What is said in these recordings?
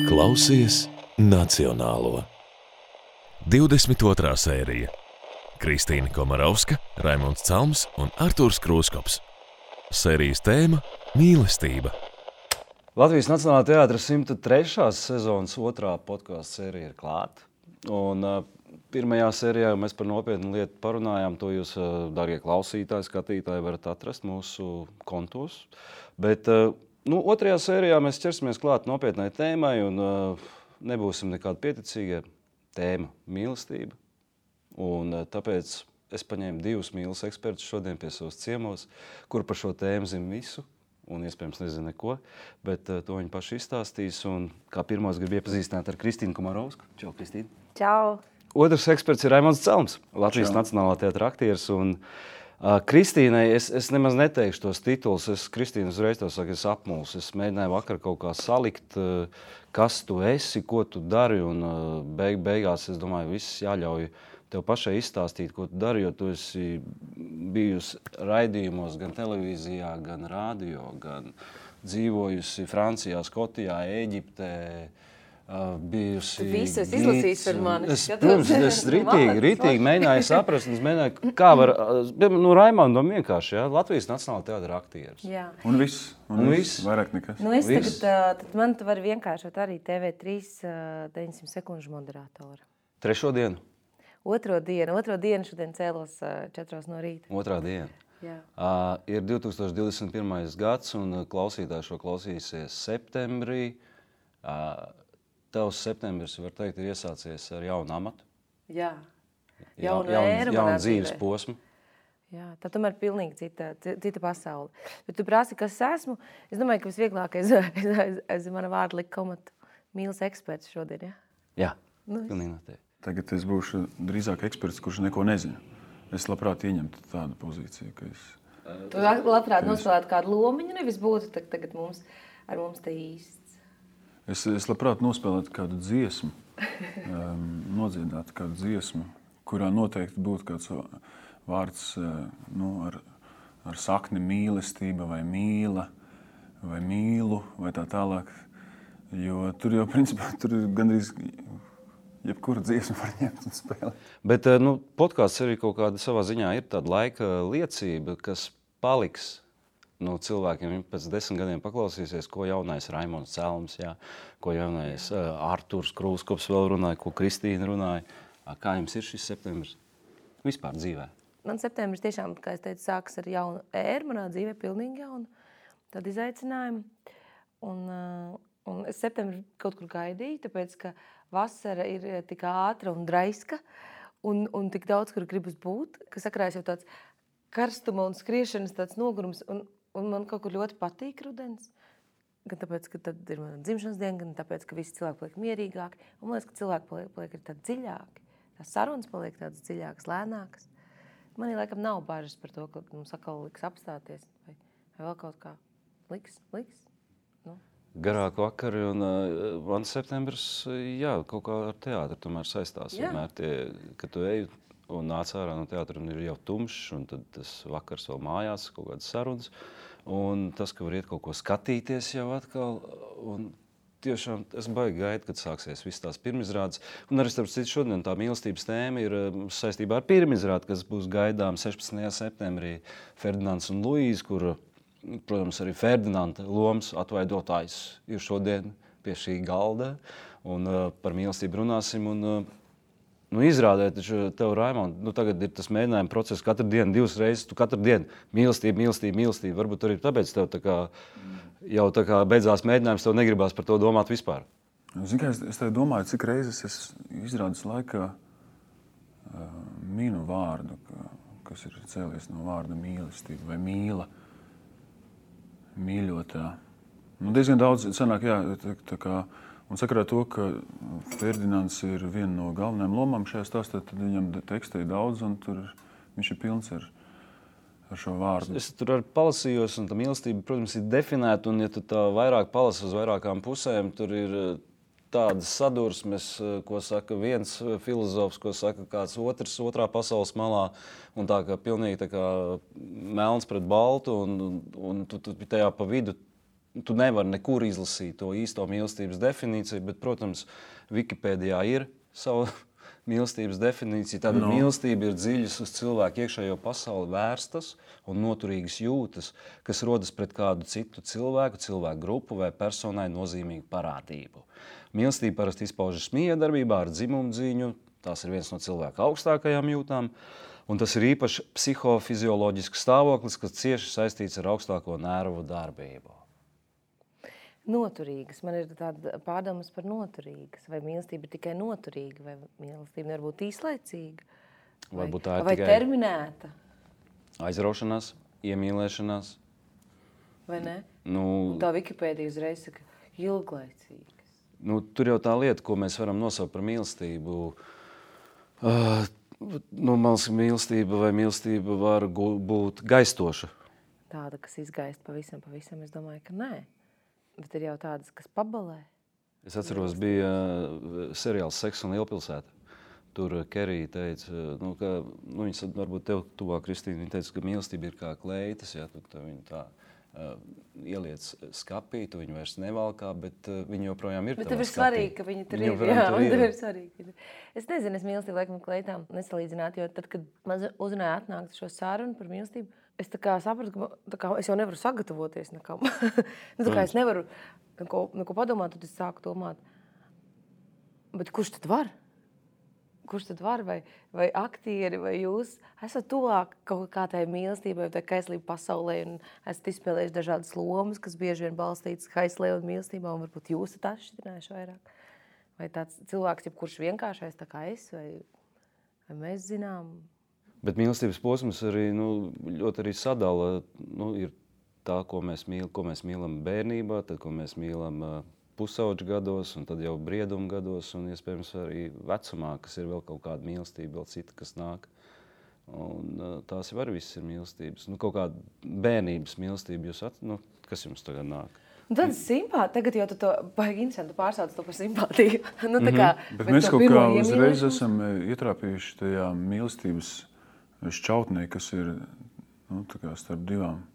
Klausies Nacionālo. 22. sērija. Kristīna Komarovska, Raimonds Calms un Artūrs Krūskops. Sērijas tēma – mīlestība. Latvijas Nacionālā teātra 103. sezonas 2. podkāstu sērija ir klāta. Un pirmajā sērijā mēs par nopietnu lietu parunājām. To jūs, darbie klausītāji, skatītāji, varat atrast mūsu kontos. Bet otrajā sērijā mēs ķersimies klāt nopietnai tēmai un nebūsim nekādi pieticīgie. Tēma – mīlestība. Un tāpēc es paņēmu 2 mīles ekspertus šodien pie savas ciemos, kuri par šo tēmu zina visu un iespējams nezina neko, bet to viņi paši izstāstīs. Un kā pirmos grib iepazīstināt ar Kristīnu Komarovsku. Čau, Kristīna. Čau. Otrs eksperts ir Raimonds Calms, Latvijas Nacionālā teātra aktieris. Un Kristīnai es nemaz neteikšu tos titulus. Kristīna uzreiz to saka, es apmulsu. Es mēģināju vakar kaut kā salikt, kas tu esi, ko tu dari, un beigās, es domāju, viss jāļauj tev pašai izstāstīt, ko tu dari, jo tu esi bijusi raidījumos gan televīzijā, gan radio, gan dzīvojusi Francijā, Skotijā, Ēģiptē, bijusi... Tu visu esi izlasījis par mani. Es ritīgi mēģināju saprast, un es mēģināju, kā var... Raimondam vienkārši, ja? Latvijas Nacionālā teātra aktieris. Jā. Un viss. Vairāk nekas. Es tagad, man tu vari vienkāršot arī TV3 900 sekundžu moderātoru. Trešo dienu? Otro dienu šodien cēlos 4 no rīta. Otrā diena. Jā. Ir 2021. gads, un klausītāji šo klausīsies septembrī. Tavs septembris, var teikt, ir iesācies ar jaunu amatu. Jā. Jaunu dzīves posmu. Jā, tā tomēr pilnīgi cita pasaule. Bet tu prasi, kas esmu? Es domāju, ka visvieglākais aiz mana vārda likt komatu mīles eksperts šodien, ja? Jā, pilnīgi noteikti. Tagad es būšu drīzāk eksperts, kurš neko nezina. Es labprāt ieņemtu tādu pozīciju, ka es... Tu labprāt nospēlētu kādu lomiņu, nevis būtu tagad ar mums te īsts. Es labprāt nospēlētu kādu dziesmu, nodziedātu kādu dziesmu, kurā noteikti būtu kāds vārds ar sakni mīlestība vai mīla vai mīlu vai tā tālāk. Jo tur jau principā tur gandrīz jebkuru dziesmu var ņemt un spēlēt. Bet podkāsts arī kaut kāda savā ziņā ir tāda laika liecība, kas paliks cilvēkiem pēc 10 gadiem paklausīsies, ko jaunais Raimonds Calms, jā, ko jaunais Artūrs Krūskops vēl runāja, ko Kristīna runāja. Kā jums ir šis septembris vispār dzīvē? Man septembris tiešām, kā es teicu, sākas ar jaunu ēru, manā dzīvē pilnīgi jaunu tādu izaicinājumu. Un es septembri kaut kur gaidīju, tāpēc, ka vasara ir tik ātra un draiska un tik daudz, kur gribas būt, ka sakrājas jau tāds karstuma un skriešanas tāds nogurums, un man kaut kur ļoti patīk rudens. Gan tāpēc, ka tad ir mana dzimšanas diena, gan tāpēc, ka visi cilvēki paliek mierīgāki. Un man liekas, ka cilvēki paliek ir tādi dziļāki. Tās sarunas paliek tādas dziļākas, lēnākas. Man laikam nav bažas par to, ka mums atkal liks apstāties vai vēl kaut kā liks. Garāk vakari, un man septembris, jā, kaut kā ar teātru tomēr saistās. Vienmēr kad tu ej un nāc ārā no teātra, un ir jau tumšs, un tad tas vakars vēl mājās, kaut kādas sarunas. Un tas, ka var iet kaut ko skatīties jau atkal, un tiešām es baigi gaidu, kad sāksies viss tās pirmizrādes. Un arī starp citu šodien tā mīlestības tēma ir saistībā ar pirmizrādi, kas būs gaidām 16. septembrī Ferdinands un Luīze, kur, protams, arī Ferdinanda lomas atvaidotājs ir šodien pie šī galda. Un par mīlestību runāsim. Un izrādē, taču tev, Raimond, tagad ir tas mēģinājuma process katru dienu, 2 reizes, tu katru dienu mīlestība. Varbūt arī tāpēc tev jau beidzās mēģinājums, tev negribās par to domāt vispār. Zini, kā es tev domāju, cik reizes es izrādes laikā minu vārdu, kas ir cēlies no vārda mīlestība vai mīla, mīļotā. Diezgan daudz sanāk, jā, tā kā... Un sakarā to, ka Ferdinands ir viena no galvenajām lomām šajā stāstā, tad viņam teksta ir daudz, un tur viņš ir pilns ar šo vārdu. Es tur arī palasījos, un tā mīlestība, protams, ir definēta, un ja tu tā vairāk palasi uz vairākām pusēm, tur ir tādas sadursmes, ko saka viens filozofs, ko saka kāds otrs otrā pasaules malā, un tā kā pilnīgi tā kā melns pret baltu, un tu tajā pa vidu tu nevari nekur izlasīt to īsto mīlestības definīciju, bet, protams, Wikipēdijā ir sava mīlestības definīcija. Tāda mīlestība ir dziļas uz cilvēku iekšējo pasauli vērstas un noturīgas jūtas, kas rodas pret kādu citu cilvēku grupu vai personai nozīmīgu parādību. Mīlestība parasti izpaužas miedarbībā ar dzimumdziņu, tās ir viens no cilvēka augstākajām jūtām, un tas ir īpaši psihofizioloģisks stāvoklis, kas cieši saistīts ar augstāko nervu darbību. Noturīgas. Man ir tāda pārdomas par noturīgas. Vai mīlestība ir tikai noturīga, vai mīlestība nevar būt īslaicīga? Varbūt tā ir vai tikai terminēta? Aizraušanās, iemīlēšanās. Vai ne? Nu, tā Wikipēdija uzreiz saka ilglaicīgas. Nu, tur jau tā lieta, ko mēs varam nosaukt par mīlestību. Mīlestība var būt gaistoša. Tāda, kas izgaist pavisam, es domāju, ka nē. Bet ir jau tādas, kas pabalē. Es atceros, bija seriāls Seks un Lielpilsēta. Tur Kerija teica, viņas varbūt tev tuvāk, Kristīna, viņa teica, ka mīlestība ir kā kleitas, ja, tu viņu tā ieliec skapī, tu viņu vairs nevalkā, bet viņa joprojām ir tavā skapī. Bet tev ir svarīgi, ka viņa tur ir. Jā, tev ir svarīgi. Es nezinu, es mīlestību laikam kleitām nesalīdzinātu, jo tad, kad man uzrunāja atnākt šo sarunu par mīlestību, es tā kā sapratu, ka es jau nevaru sagatavoties nekam. Es nevaru neko padomāt, tad es sāku domāt, bet kurš tad var? Kurš tad var? Vai aktieri, vai jūs esat tuvāk kaut kā tai mīlestībai, vai tai kaislību pasaulē, un esat izspēlējuši dažādas lomas, kas bieži vien balstītas kaislē un mīlestībā, un varbūt jūs esat atšķirinājuši vairāk? Vai tāds cilvēks, kurš vienkāršais tā kā es, vai mēs zinām? Bet mīlestības posms arī ļoti arī sadala. Ir tā, ko mēs mīlam bērnībā, tad, ko mēs mīlam pusauģu gados, un tad jau brieduma gados, un iespējams arī vecumā, kas ir vēl kaut kāda mīlestība, vēl cita, kas nāk. Un tās jau arī visas ir mīlestības. Kaut kāda bērnības mīlestība, kas jums tagad nāk? Tad simpātija, tagad jau tu to baigi interesanti pārsauc to par simpātiju. Bet mēs kaut kā uzreiz esam ietrāpījuši tajā mīlestības šķautnē, kas ir starp divām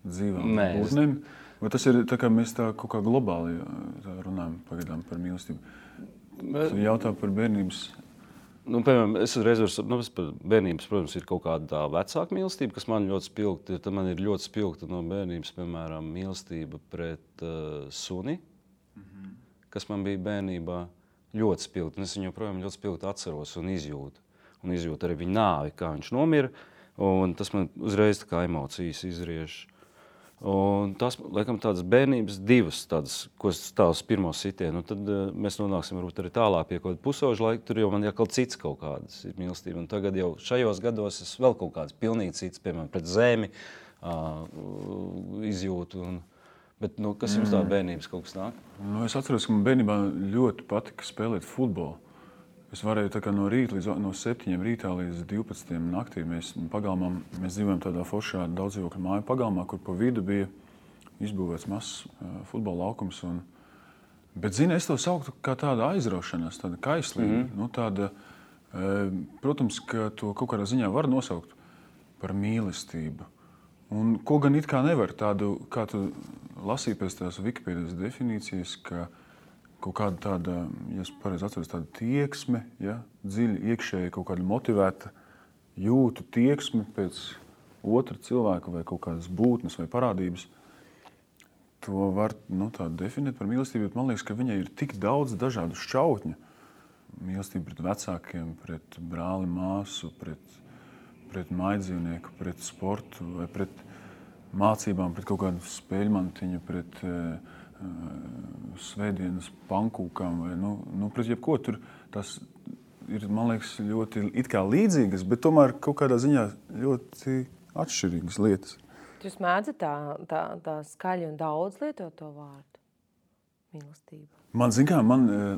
dzīvām būtnēm. Vai tas ir tā, kā mēs tā kaut kā globāli runājam pagaidām par mīlestību? Tu jautā par bērnības... Piemēram, es uzreiz par bērnības, protams, ir kaut kāda tā vecāka mīlestība, kas man ļoti spilgta. Tad man ir ļoti spilgta no bērnības, piemēram, mīlestība pret suni, kas man bija bērnībā ļoti spilgta. Es viņu joprojām ļoti spilgti atceros un izjūtu. Un izjūtu arī viņa nāvi, kā viņš nomira. Un tas man uzreiz tā kā emocijas izriež. Un tas, laikam, tādas bērnības divas, tādas, ko es stāvu uz pirmo sitienu. Tad mēs nonāksim varbūt arī tālāk pie kaut kāda pusauža laika. Tur jau man jākal cits kaut kādas ir mīlestība. Un tagad jau šajos gados es vēl kaut kādas pilnīgi cits, piemēram, pret zemi izjūtu. Bet kas jums tā bērnības kaut kas nāk? Es atceros, ka man bērnībā ļoti patika spēlēt futbolu. Es varēju tā kā no 7 rītā līdz 12 naktī. Mēs dzīvojam tādā foršā daudzdzīvokļu māju pagalmā, kur pa vidu bija izbūvēts mazs futbola laukums. Bet, es to sauktu kā tāda aizraušanās, tāda kaislība. Protams, ka to kaut kādā ziņā var nosaukt par mīlestību. Un ko gan it kā nevar tādu, kā tu lasīji pēc tās Wikipēdijas definīcijas, ka kaut kāda tāda, ja es pareizi atceros, tāda tieksme, dziļi iekšēji kaut kāda motivēta jūtu tieksme pēc otra cilvēka vai kaut kādas būtnes vai parādības. To var tā definēt par mīlestību, bet man liekas, ka viņai ir tik daudz dažādu šķautņu. Mīlestība pret vecākiem, pret brāli, māsu, pret mājdzīvnieku, pret sportu vai pret mācībām, pret kaut kādu spēļmantiņu, pret svētdienas pankūkām vai pret jebko. Tur tas ir, man liekas, ļoti it kā līdzīgas, bet tomēr kaut kādā ziņā ļoti atšķirīgas lietas. Jūs mēdzat tā skaļi un daudz lietot to vārdu mīlestība? Man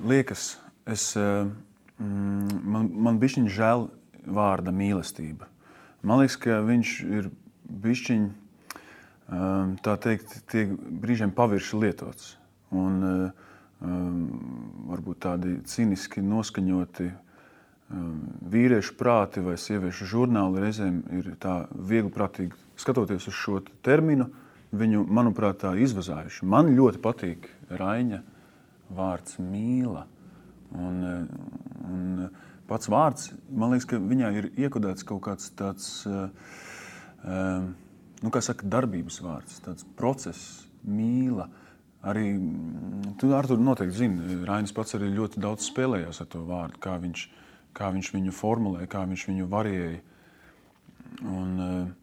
liekas, man bišķiņ žēl vārda mīlestība. Man liekas, ka viņš ir bišķiņ tā teikt, tiek brīžiem pavirši lietots. Un varbūt tādi ciniski noskaņoti vīriešu prāti vai sieviešu žurnāli reizēm ir tā viegliprātīgi skatoties uz šo terminu, viņu, manuprāt, tā izvazājuši. Man ļoti patīk Raiņa vārds mīla. Un pats vārds, man liekas, ka viņā ir iekodēts kaut kāds tāds, kā saka, darbības vārds, tāds process, mīla. Arī, tu, Artur, noteikti zini, Rainis pats arī ļoti daudz spēlējās ar to vārdu, kā viņš viņu formulē, kā viņš viņu variēja. Un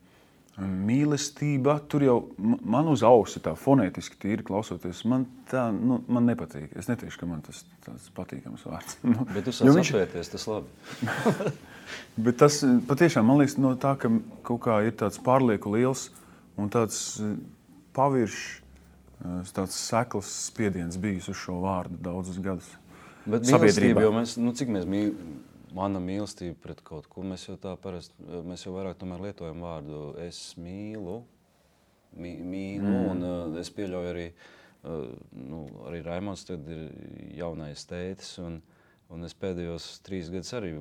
mīlestība, tur jau man uz ausi tā fonētiski tīri klausoties, man nepatīk. Es neteikšu, ka man tas patīkams vārds. Bet tu sāc apvērties, tas labi. Bet tas patiešām, man liekas, no tā, ka kaut kā ir tāds pārlieku liels un tāds paviršs, tāds sekls spiediens bijis uz šo vārdu daudzus gadus. Bet mīlestība, jo cik mēs mana mīlestība pret kaut ko, mēs jau vairāk tomēr lietojam vārdu es mīlu, un es pieļauju arī, arī Raimonds tad ir jaunais tētis, un es pēdējos 3 gadus arī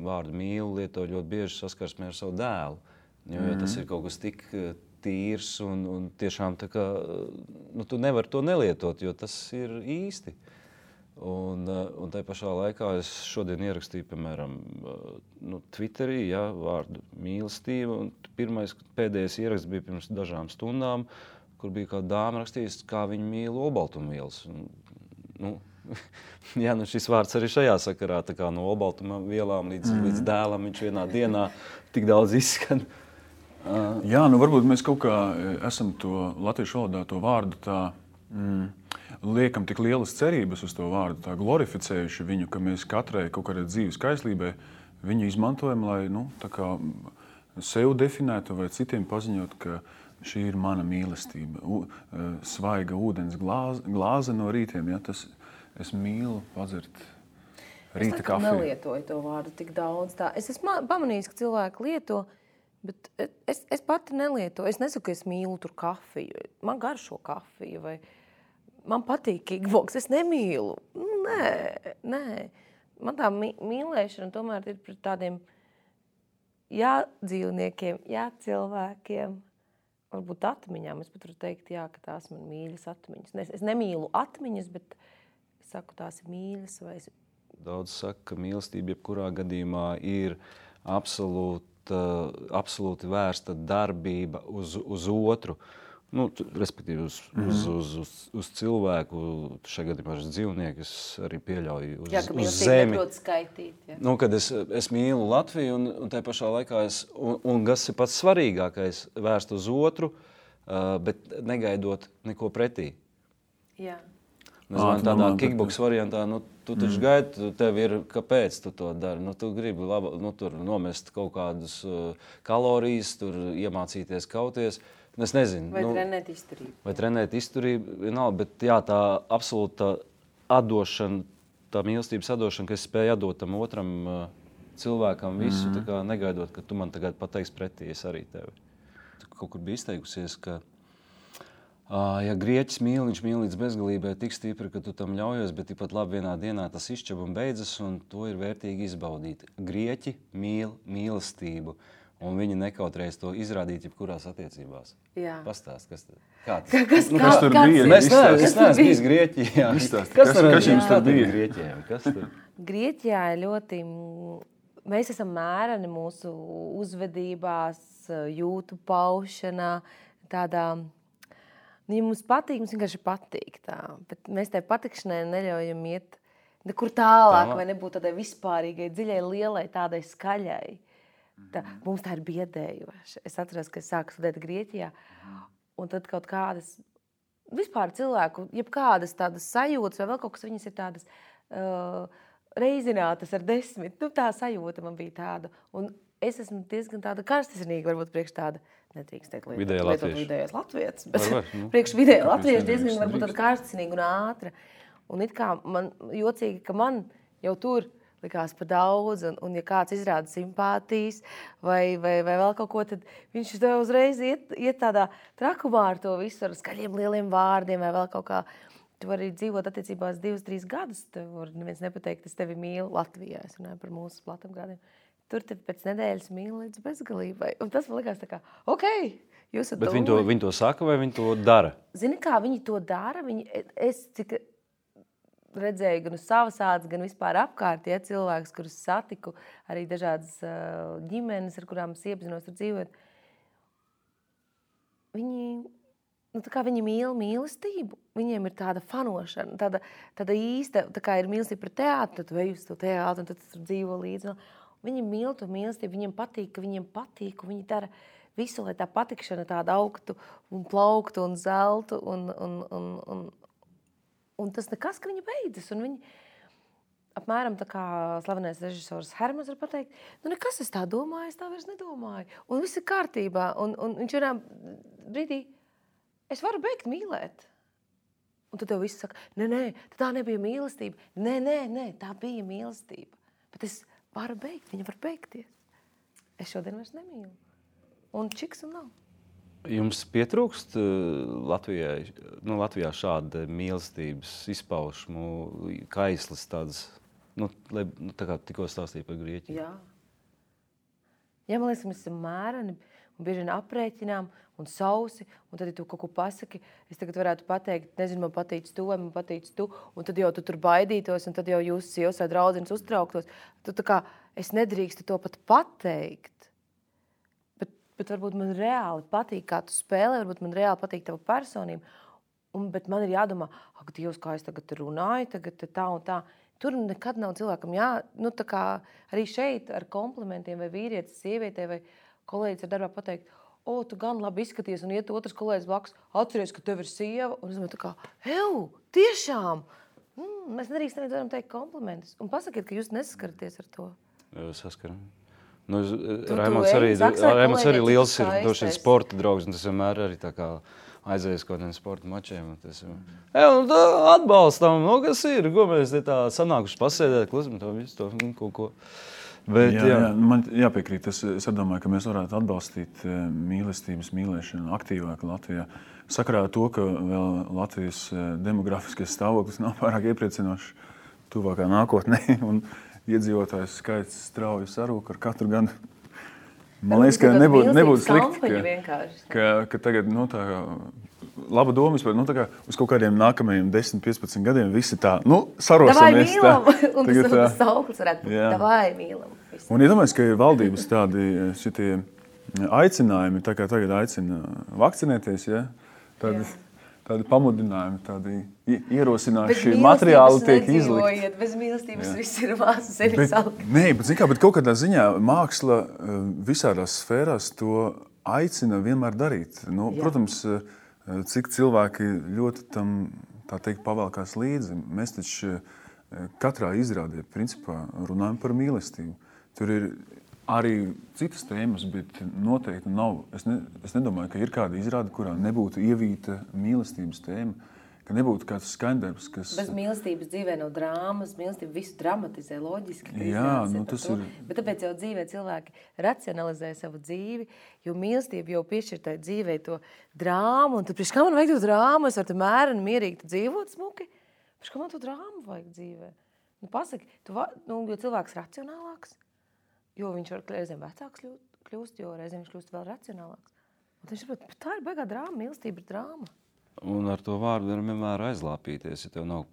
vārdu mīlu lietoju ļoti bieži saskarsmē ar savu dēlu, jo tas ir kaut kas tik tīrs un tiešām tā kā, tu nevari to nelietot, jo tas ir īsti. Un tai pašā laikā es šodien ierakstīju, piemēram, Twitterī, vārdu mīlestība, un pēdējais ieraksts bija pirms dažām stundām, kur bija kāda dāma rakstījusi, kā viņa mīl olbaltumvielas. Šis vārds arī šajā sakarā, tā kā no olbaltumvielām līdz dēlam viņš vienā dienā tik daudz izskan. Jā, varbūt mēs kaut kā esam to latviešu valodā to vārdu tā liekam tik lielas cerības uz to vārdu, tā glorificējuši viņu, ka mēs katrai kaut kādai dzīves kaislībai viņu izmantojam, lai tā kā sev definētu vai citiem paziņot, ka šī ir mana mīlestība. Svaiga ūdens glāze no rītiem, es mīlu padzert rīta kafiju. Es nelietoju to vārdu tik daudz. Es esmu pamanījis, ka cilvēki lieto, bet es pati nelietoju. Es nesaku, ka es mīlu tur kafiju. Man garšo kafiju vai man patīk kickboks, es nemīlu. Nē. Man tā mīlēšana tomēr ir pret tādiem dzīvniekiem, cilvēkiem, varbūt atmiņām. Es pat varu teikt, ka tās man mīļas atmiņas. Es nemīlu atmiņas, bet es saku, tās ir mīļas. Daudz saka, ka mīlestība jebkurā gadījumā ir absolūti vērsta darbība uz otru. Respektīvi uz cilvēku, šajā gadījumā uz dzīvnieku, es arī pieļauju uz zemi. Skaitīt, Kad es mīlu Latviju un tajā pašā laikā un kas ir pats svarīgākais, vērst uz otru, bet negaidot neko pretī. Jā. Tādā kickboks variantā, tu taču gaidi, tev ir, kāpēc tu to dari. Tu gribi tur nomest kaut kādus kalorijas, tur iemācīties kauties. Es nezinu. Vai trenēt izturību. Vienalga, bet tā absolūta atdošana, tā mīlestības atdošana, ka es spēju atdot tam otram cilvēkam visu, tā kā negaidot, ka tu man tagad pateiksi pretī, es arī tevi. Kaut kur bija izteikusies, ka ja grieķis mīl, viņš mīl līdz bezgalībai tik stipri, ka tu tam ļaujies, bet tikpat labi vienā dienā tas izšķeb un beidzas, un to ir vērtīgi izbaudīt. Grieķi mīl mīlestību. Un viņi nekautrējas to izrādīt jebkurās attiecībās. Jā. Pastāst, kas tad? Kā kas tur bija? Es neesmu bijis Grieķijā. Kas jums tur bija Grieķijā? Grieķijā ir ļoti... Mēs esam mēreni mūsu uzvedībās, jūtu paušanā, tādā... Ja mums patīk, mums vienkārši patīk tā. Bet mēs tai patikšanai neļaujam iet nekur tālāk, vai nebūt tādai vispārīgai, dziļai, lielai, tādai skaļai. Mums tā ir biedējoša. Es atceros, ka es sāku studēt Grieķijā, un tad kaut kādas vispār cilvēku, jebkādas tādas sajūtas vai vēl kaut kas, viņas ir tādas reizinātas ar 10. Tā sajūta man bija tāda. Un es esmu diezgan tāda karstasinīga, varbūt priekš tāda, nedrīkst teikt vidējais latvietis, bet priekš vidēja latvieši diezgan varbūt tāda karstasinīga un ātra. Un it kā man jocīgi, ka man jau tur likās pa daudz, un ja kāds izrāda simpātijas vai vēl kaut ko, tad viņš uzreiz iet tādā trakumā ar to visu, ar skaļiem lieliem vārdiem vai vēl kaut kā. tu vari dzīvot attiecībās 2-3 gadus. Tev var neviens nepateikt, es tevi mīlu Latvijā. Es runāju par mūsu platumgrādiem. Tur tevi pēc nedēļas mīlu līdz bezgalībai. Un tas man likās tā kā, jūs Bet viņi to saka vai viņi to dara? Zini, kā viņi to dara? Es cik redzēju gan uz savas ādas, gan vispār apkārt, cilvēkus, kurus satiku, arī dažādas ģimenes, ar kurām es iepazinos, tur dzīvot. Viņi mīl mīlestību. Viņiem ir tāda fanošana, tāda īsta, tā kā ir mīlestība pret teātru, tad vej uz to teātru un tad tur dzīvo līdzi. Viņi mīl to mīlestību, viņiem patīk, ka viņiem patīk, un viņi dara visu, lai tā patikšana tāda augtu un plauktu un zeltu un tas nekas, ka viņi beidzas. Un viņi apmēram tā kā slavenais režisors Hermans var pateikt, nekas es tā domāju, es tā vairs nedomāju. Un viss ir kārtībā. Un viņš vienā brīdī, es varu beigt mīlēt. Un tad tev viss saka, nē, tā nebija mīlestība. Nē, tā bija mīlestība. Bet es varu beigt, viņa var beigties. Es šodien vairs nemīlu. Un čiks un nav. Jums pietrūkst Latvijā šāda mīlestības izpaušmu, kaislas tādas, tā kā tikko stāstīja par Grieķiju? Jā. Man liekas, mēs esam mēreni un bieži vien aprēķinām un sausi, un tad, ja tu kaut ko pasaki, es tagad varētu pateikt, nezinu, man patīc tu vai man patīc tu, un tad jau tu tur baidītos, un tad jau jūs sievas vai draudzenes uztrauktos. Tu tā kā, es nedrīkstu to pat pateikt. Bet varbūt man reāli patīk, kā tu spēlē, varbūt man reāli patīk tava personība. Bet man ir jādomā, ak, Dievs, kā es tagad runāju, tagad tā un tā. Tur nekad nav cilvēkam tā kā arī šeit ar komplimentiem vai vīrietis, sievietē vai kolēģis ar darbā pateikt, tu gan labi izskaties, un iet otrs kolēģis blakus, atceries, ka tev ir sieva, un es domāju tā kā, tiešām! Mēs nedrīkstam nevienam teikt komplimentus. Un pasakiet, ka jūs nesaskaraties ar to. Saskaram. Raimonds arī liels ir doši sporta draugs, un tas vienmēr arī tā kā aizies kaut kādiem sporta mačiem. Atbalstam, kas ir, ko mēs tā sanākuši pasēdēt, klusam, to visu, to kaut ko. Bet, jā, man jāpiekrīt, es domāju, ka mēs varētu atbalstīt mīlestības mīlēšanu aktīvāk Latvijā. Sakarā to, ka vēl Latvijas demografiskais stāvoklis nav pārāk iepriecinošs tuvākā nākotnē, un iedzīvotājs skaits strauji sarūk ar katru gadu. Man liekas, ka nebūtu slikti, ka tagad, tā kā laba doma vispār, tā kā uz kaut kādiem nākamajiem 10-15 gadiem visi tā, sarosimies. Davai mīlam, un tas sauklis varētu būt, davai mīlam. Un iedomājies, ka ir valdības tādi šitie aicinājumi, tā kā tagad aicina vakcinēties, tādi pamudinājumi, tādi ierosinājuši materiāli tiek izlikti. Bez mīlestības viss ir māsas sevi salkt. Nē, bet kaut kādā ziņā māksla visādās sfērās to aicina vienmēr darīt. Protams, cik cilvēki ļoti tam, tā teikt, pavēlkās līdzi. Mēs taču katrā izrādē, principā, runājam par mīlestību. Tur ir arī citas tēmas, bet noteikti nav. Es nedomāju, ka ir kāda izrāde, kurā nebūtu ievīta mīlestības tēma, ka nebūtu kāds skaņdarbs, kas... Bez mīlestības dzīvē nav drāmas, mīlestība visu dramatizē, loģiski. Jā, tas ir... Bet tāpēc jau dzīvē cilvēki racionalizē savu dzīvi, jo mīlestība jau piešķir tai dzīvē to drāmu, un tad priekš kā man vajag to drāmu, es varu te mēreni mierīgi dzīvot smuki, priekš kā man to drāmu vajag dzīvē. Pasaki, jo cilvēks racionālāks, jo viņš var reizēm vecāks kļūst, jo reizēm viņš kļūst vēl racionālāks. Un viņš saprot, tā ir baigā drāma, mīlestība ir drāma. Un ar to vārdu var vienmēr aizlāpīties, ja tev nav,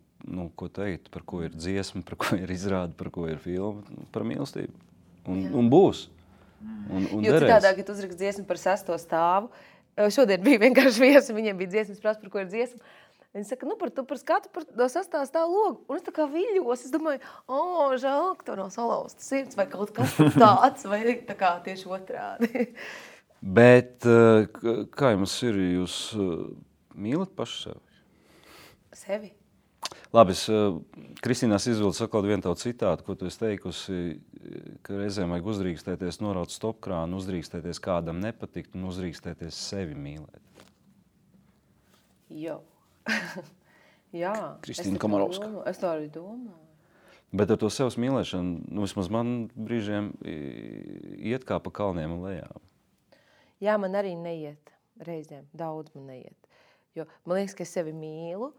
ko teikt, par ko ir dziesma, par ko ir izrāde, par ko ir filma, par mīlestību. Un būs. Un jo citādāk, ja tu uzrakst dziesmu par 6. stāvu, šodien bija vienkārši viesi, viņiem bija dziesmas prasa, par ko ir dziesma. Viņi saka, par skatu no 6. stāva logu. Un es tā kā viļos, es domāju, žēl, ka tev nav salauzta sirds vai kaut kas tāds, vai tā kā tieši otrādi. Bet kā jums ir, jūs mīlat paši sevi? Sevi? Labi, Kristīnās izvildu sakot vienu tavu citātu, ko tu esi teikusi, ka reizēm vajag uzdrīkstēties, noraut stopkrānu, uzdrīkstēties kādam nepatikt un uzdrīkstēties sevi mīlēt. Jo. Jā. Kristīna Komarovska. Es tā arī domāju. Bet ar to sevs mīlēšanu, vismaz man brīžiem iet kā pa kalniem un lejām. Jā, man arī neiet reizēm. Daudz man neiet. Jo man liekas, ka es sevi mīlu,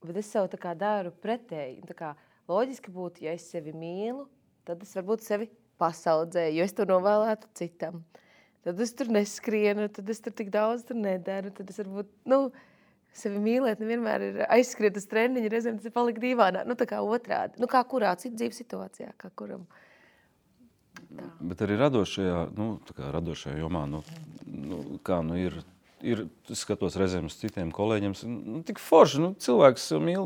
Bet es sev tā kā daru pretēji. Tā kā loģiski būtu, ja es sevi mīlu, tad es varbūt sevi pasaudzēju, jo es to novēlētu citam. Tad es tur neskrienu, tad es tur tik daudz tur nedaru, tad es varbūt, sevi mīlēt nevienmēr ir aizskriet uz treniņu, reizēm tas ir palikt dīvainā, tā kā otrādi. Kā kurā citu dzīves situācijā, kā kuram. Tā. Bet arī radošajā jomā, ir skatos reizēm uz citiem kolēģiem, tik forši, cilvēks mīl,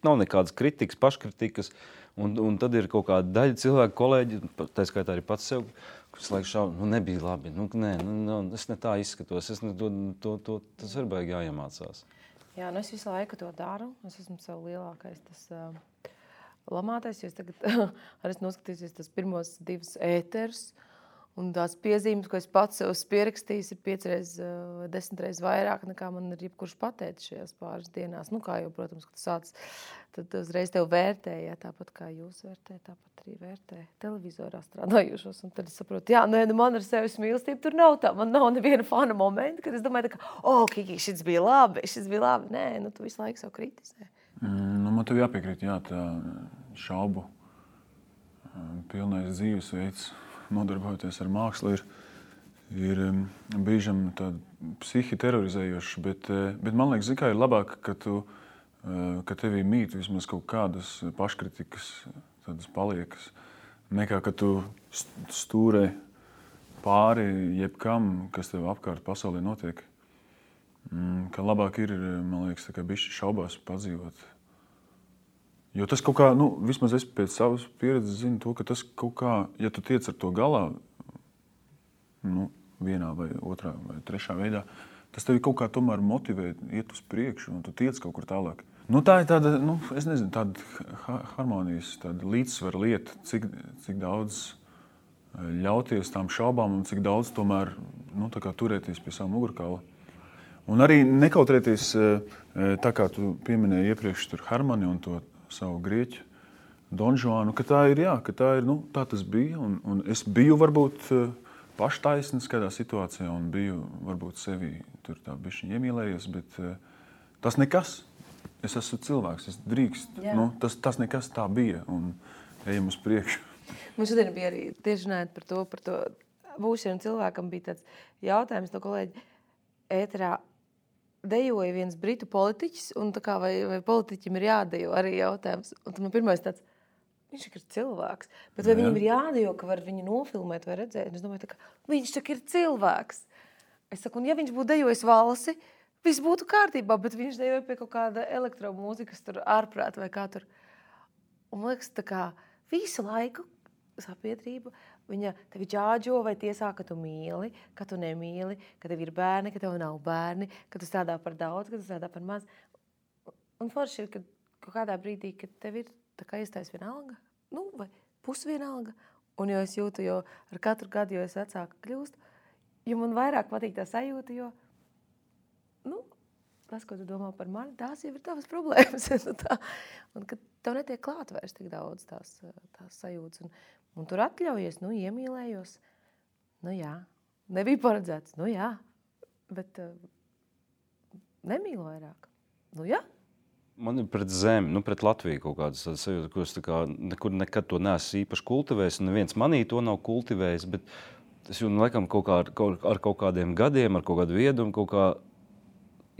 nav nekādas kritikas, paškritikas, un tad ir kaut kāda daļa cilvēku kolēģi, tā skaitā arī pats sev, kas laiks šaubu, nebija labi, es ne tā izskatos, tas ir baigi jāiemācās. Jā, es visu laiku to daru, es esmu sev lielākais tas lamātais, jo es tagad arī noskatījusies tas pirmos 2 ēterus, un tās piezīmes, ko es pats sev pierakstījis, ir 5 vai 10 reizes vairāk, nekā man ir jebkurš pateicis šajās pāris dienās. Kā jau, protams, kad tu sāc, tad uzreiz tev vērtē, jā, tāpat kā jūs vērtē, tāpat arī vērtē televizorā strādājušos. Un tad es saprotu, man ar sevis mīlestību tur nav tā. Man nav neviena fana momenta, kad es domāju, Kiki, šis bija labi. Nē, tu visu laiku sev kritizē. Man tev jāpiekrīt, tā šaubu pilnais dzīvesveids, nodarbojoties ar mākslu, ir brīžam tāda psihi terorizējošs, bet man liekas, ir labāk, ka tevī mīt vismaz kaut kādas paškritikas, tādas paliekas, nekā, ka tu stūrē pāri jebkam, kas tev apkārt pasaulē notiek. Ka labāk ir, man liekas, tā kā bišķi šaubās padzīvot. Jo tas kaut kā, vismaz es pēc savas pieredzes zinu to, ka tas kaut kā, ja tu tiec ar to galā, vienā vai otrā vai trešā veidā, tas tevi kaut kā tomēr motivē iet uz priekšu un tu tiec kaut kur tālāk. Tā ir tāda, es nezinu, tāda harmonijas, tāda līdzsvara lieta, cik daudz ļauties tām šaubām un cik daudz tomēr, tā kā turēties pie savu mugurkaula. Un arī nekautrēties, tā kā tu pieminēji iepriekš tur Hermani un to savu grieķu Don Juanu, ka tā ir, tā tas bija, un es biju varbūt paštaisnis kādā situācijā un biju varbūt sevi tur tā bišķiņ iemīlējies, bet tas nekas. Es esmu cilvēks, es drīkst. Tas nekas tā bija, un ejam uz priekšu. Mums šodien bija arī tieši runājot par to būšanu cilvēkam bija tāds jautājums no kolēģi ēterā. Dejoja viens britu politiķis, un tā kā vai politiķim ir jādejo arī jautājums. Un tad man pirmais tāds, viņš ir cilvēks, bet vai viņam ir jādejo, ka var viņu nofilmēt vai redzēt? Es domāju, viņš tak ir cilvēks. Es saku, un ja viņš būtu dejojis valsi, viss būtu kārtībā, bet viņš dejoja pie kaut kāda elektromūzikas tur ārprāt vai kā tur. Un man liekas, tā kā visu laiku sabiedrība, viņa tevi ģāģo vai tiesā, ka tu mīli, ka tu nemīli, ka tev ir bērni, ka tev nav bērni, ka tu strādā par daudz, ka tu strādā par maz. Un forši ir, ka kaut kādā brīdī, kad tev ir tā kā iestājas vienalga, vai pusvienalga. Un jo es jūtu, jo ar katru gadu, jo es vecāka kļūstu, jo man vairāk patīk tā sajūta, jo, tas, ko tu domā par mani, tās jau ir tavas problēmas. Un kad tev netiek klāt vairs tik daudz tās sajūtas. Un tur atļaujies, iemīlējos. Jā, nebija paredzēts. Jā, bet nemīlu vairāk. Jā. Man ir pret zemi, pret Latviju kaut kādas sajūtas, ko es nekur nekad to neesmu īpaši kultivējis. Un neviens manī to nav kultivējis, bet es jūtu, laikam, ar kaut kādiem gadiem, ar kaut kādu viedumu, kaut kā,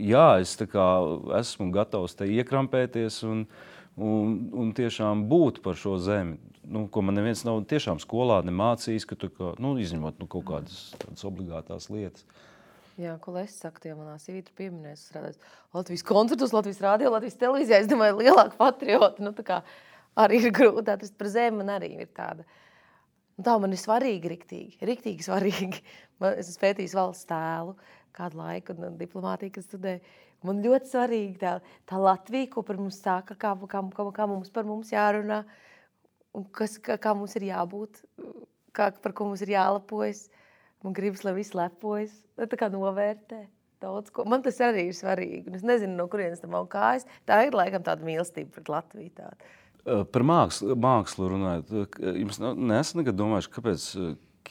es esmu gatavs te iekrampēties un tiešām būt par šo zemi, ko man neviens nav tiešām skolā nemācījis, ka tu izņemot kaut kādas obligātās lietas. Jā, ko es saku, ja manā sīvītra pieminēs, strādājot Latvijas koncertos, Latvijas radio, Latvijas televīzijā, es domāju, lielāka patriota, arī ir grūti atrast par zemi, man arī ir tāda. Tā man ir svarīgi, riktīgi svarīgi. Es esmu pētījis valsts tēlu kādu laiku un diplomātiju, kad studēju. Man ļoti svarīgi tā Latvija, ko par mums saka, kā mums par mums jārunā, un kā mums ir jābūt, par ko mums ir jālepojas. Man gribas, lai viss lepojas, tā kā novērtē daudz ko. Man tas arī ir svarīgi. Es nezinu, no kurienes tam nav kājas. Tā ir laikam tāda mīlestība pret Latviju tāda. Par mākslu runājot, jums neesat nekad domājuši, kāpēc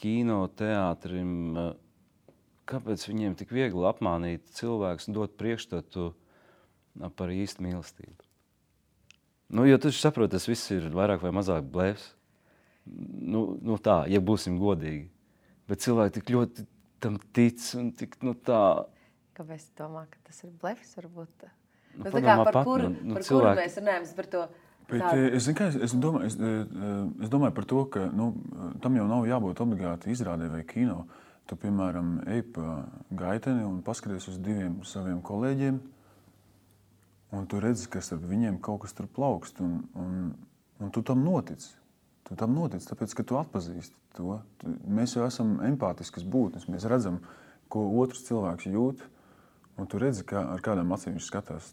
kino teātrim, kāpēc viņiem tik viegli apmānīt cilvēks un dot priekšstatu par īstu mīlestību? Nu, jo tu saproti, tas viss ir vairāk vai mazāk blēfs. Nu tā, ja būsim godīgi. Bet cilvēki tik ļoti tam tic un tik, tā... Kāpēc tu domā, ka tas ir blefs, varbūt? Nu, tā kā par kuru mēs runājam, par to... Es domāju par to, ka tam jau nav jābūt obligāti izrādē vai kino. Tu, piemēram, ej pa gaiteni un paskaties uz 2 saviem kolēģiem, un tu redzi, ka starp viņiem kaut kas tur plaukst, un tu tam notici. Tu tam notici, tāpēc, ka tu atpazīsti to. Mēs jau esam empātiskas būtnes, mēs redzam, ko otrs cilvēks jūt, un tu redzi, ar kādām acīm viņš skatās.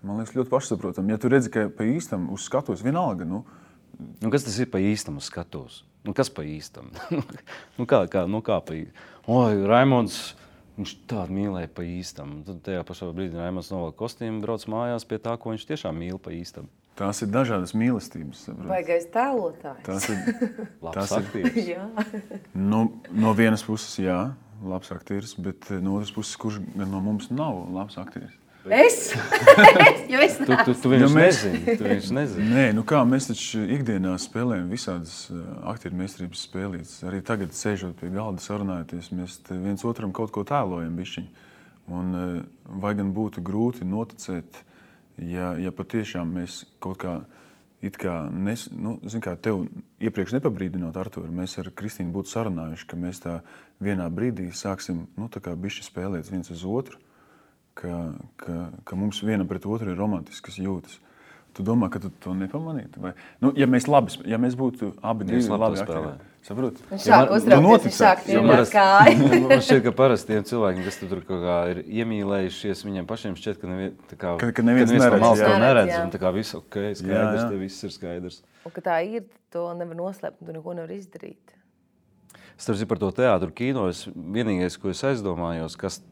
Man liekas, ļoti pašsaprotam. Ja tu redzi, ka pa īstam uz skatos vienalga, kas tas ir pa īstam uz skatos? Kas pa īstam? Kā pa īstam? Oi, Raimonds, viņš tādu mīlēja pa īstam. Tad tajā pašā brīdī Raimonds novelk kostīmu, brauc mājās pie tā, ko viņš tiešām mīl pa īstam. Tās ir dažādas mīlestības. Baigais tēlotājs. Tās ir labs aktieris. Jā. No vienas puses, jā, labs aktieris, bet no otras puses, kurš no mums nav labs aktieris? Es? Jo es nāc. Tu viņš nezini. Nē, mēs taču ikdienā spēlējam visādas aktieru meistarības spēlītes. Arī tagad, sēžot pie galda, sarunājoties, mēs viens otram kaut ko tēlojam bišķiņ. Un vai gan būtu grūti noticēt, ja patiešām mēs kaut kā, tev iepriekš nepabrīdinot, Artur, mēs ar Kristīnu būtu sarunājuši, ka mēs tā vienā brīdī sāksim, tā kā bišķi spēlēt viens uz otru, ka mums vienam pret otru ir romantiskas jūtas. Tu domā, ka tu to nepamanītu? Vai? Ja mēs būtu abi divi labi aktieri. Saproti? Viņš sāk uztraukties, viņš sāk tirnāt kāju. Man šķiet, ka parasti tiem cilvēkiem, kas tur kaut kā ir iemīlējušies, viņiem pašiem šķiet, ka neviens neredz. Un tā kā viss skaidrs, te viss ir skaidrs. Un ka tā ir, to nevar noslēpt, tu neko nevar izdarīt. Starp par to teātru kino, vienīgais, ko es aizdomājos, kas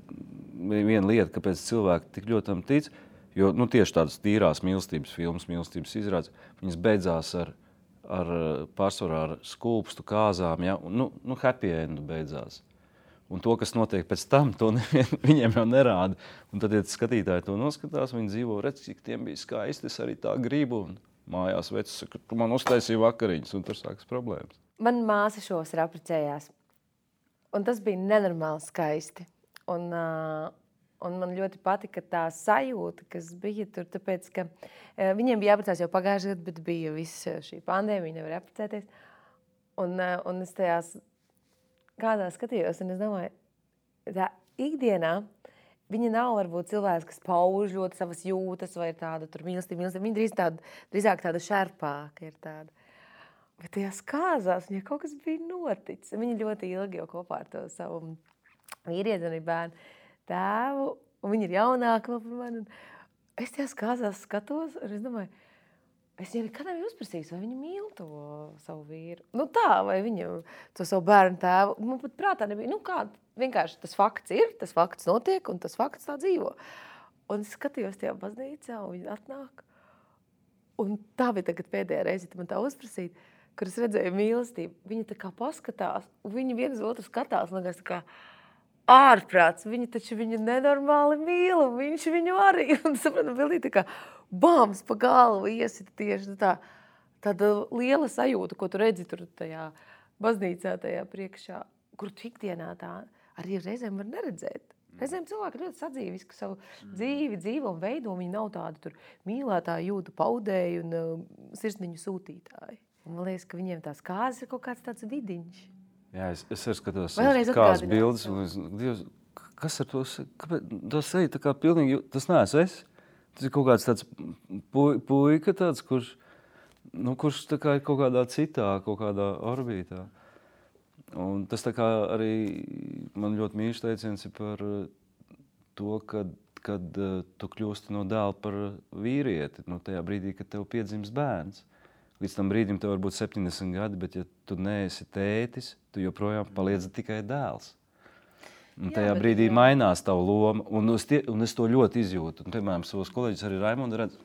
viena lieta, kāpēc cilvēki tik ļoti tam tic, jo tieši tādas tīrās mīlestības filmas, mīlestības izrādes, viņas beidzās ar pārsvarā ar skulpstu kāzām, ja? Happy endu beidzās. Un to, kas notiek pēc tam, to viņiem jau nerāda. Un tad, ja skatītāji to noskatās, viņi dzīvo, redz, cik tiem bija skaisti, es arī tā gribu, un mājās vecs saka, tu man uztaisīji vakariņas, un tur sākas problēmas. Man māsa šos ir apprecējās, un tas bija nenormāli skaisti. Un man ļoti patika tā sajūta, kas bija tur, tāpēc, ka viņiem bija jāprecās jau pagājušajā gadā, bet bija viss šī pandēmija, viņi nevar apprecēties. Un es tajās kādā skatījos, un es domāju, tā ikdienā viņa nav varbūt cilvēks, kas pauž ļoti savas jūtas vai tāda tur mīlestība. Viņa drīzāk tāda šerpāka ir tāda. Bet tajās kāzās viņai kaut kas bija noticis. Viņa ļoti ilgi jau kopā ar to savu vīrieti un bērnu tēvu, un viņi ir jaunāki vēl par mani. Es tajās kāzās skatos, un es domāju, es jau nekad nebiju uzprasījis, vai viņi mīl to savu vīru. Vai viņu to savu bērnu tēvu. Man pat prātā nebija, vienkārši tas fakts ir, tas fakts notiek, un tas fakts tā dzīvo. Un es skatījos tajā baznīcā, un viņi atnāk. Un tā bija tagad pēdējā reize, man tā uzprasīt, kur es redzēju mīlestību. Viņi tā kā paskatās, un viņi viens otru skatās, un tā kā ārprāts, viņi taču viņu nenormāli mīl, un viņš viņu arī. Un sapratu, bildī tā kā bāms pa galvu iesita tieši tāda liela sajūta, ko tu redzi tur tajā baznīcā, tajā priekšā, kur tu ikdienā tā arī reizēm var neredzēt. Reizēm cilvēki ļoti sadzīviski savu dzīvi dzīvo un veido, viņi nav tādi tur mīlētāji, jūtu paudēji un sirsniņu sūtītāji. Un man liekas, ka viņiem tās kāzes ir kaut kāds tāds vidiņš. Jā, es arī skatos kādas bildes, un Dievs, kas ar to, tas seja tā kā pilnīgi, tas neesmu es. Tas ir kaut kāds tāds puika tāds, kurš tā kā ir kaut kādā citā, kaut kādā orbītā. Un tas tā kā arī man ļoti mīļš teiciens ir par to, kad tu kļūsti no dēla par vīrieti, tajā brīdī, kad tev piedzimst bērns. Līdz tam brīdim tev var būt 70 gadi, bet ja tu neesi tētis, tu joprojām paliec tikai dēls. Un tajā brīdī mainās tavu loma, un es to ļoti izjūtu. Un, piemēram, savos kolēģis arī Raimondu redz,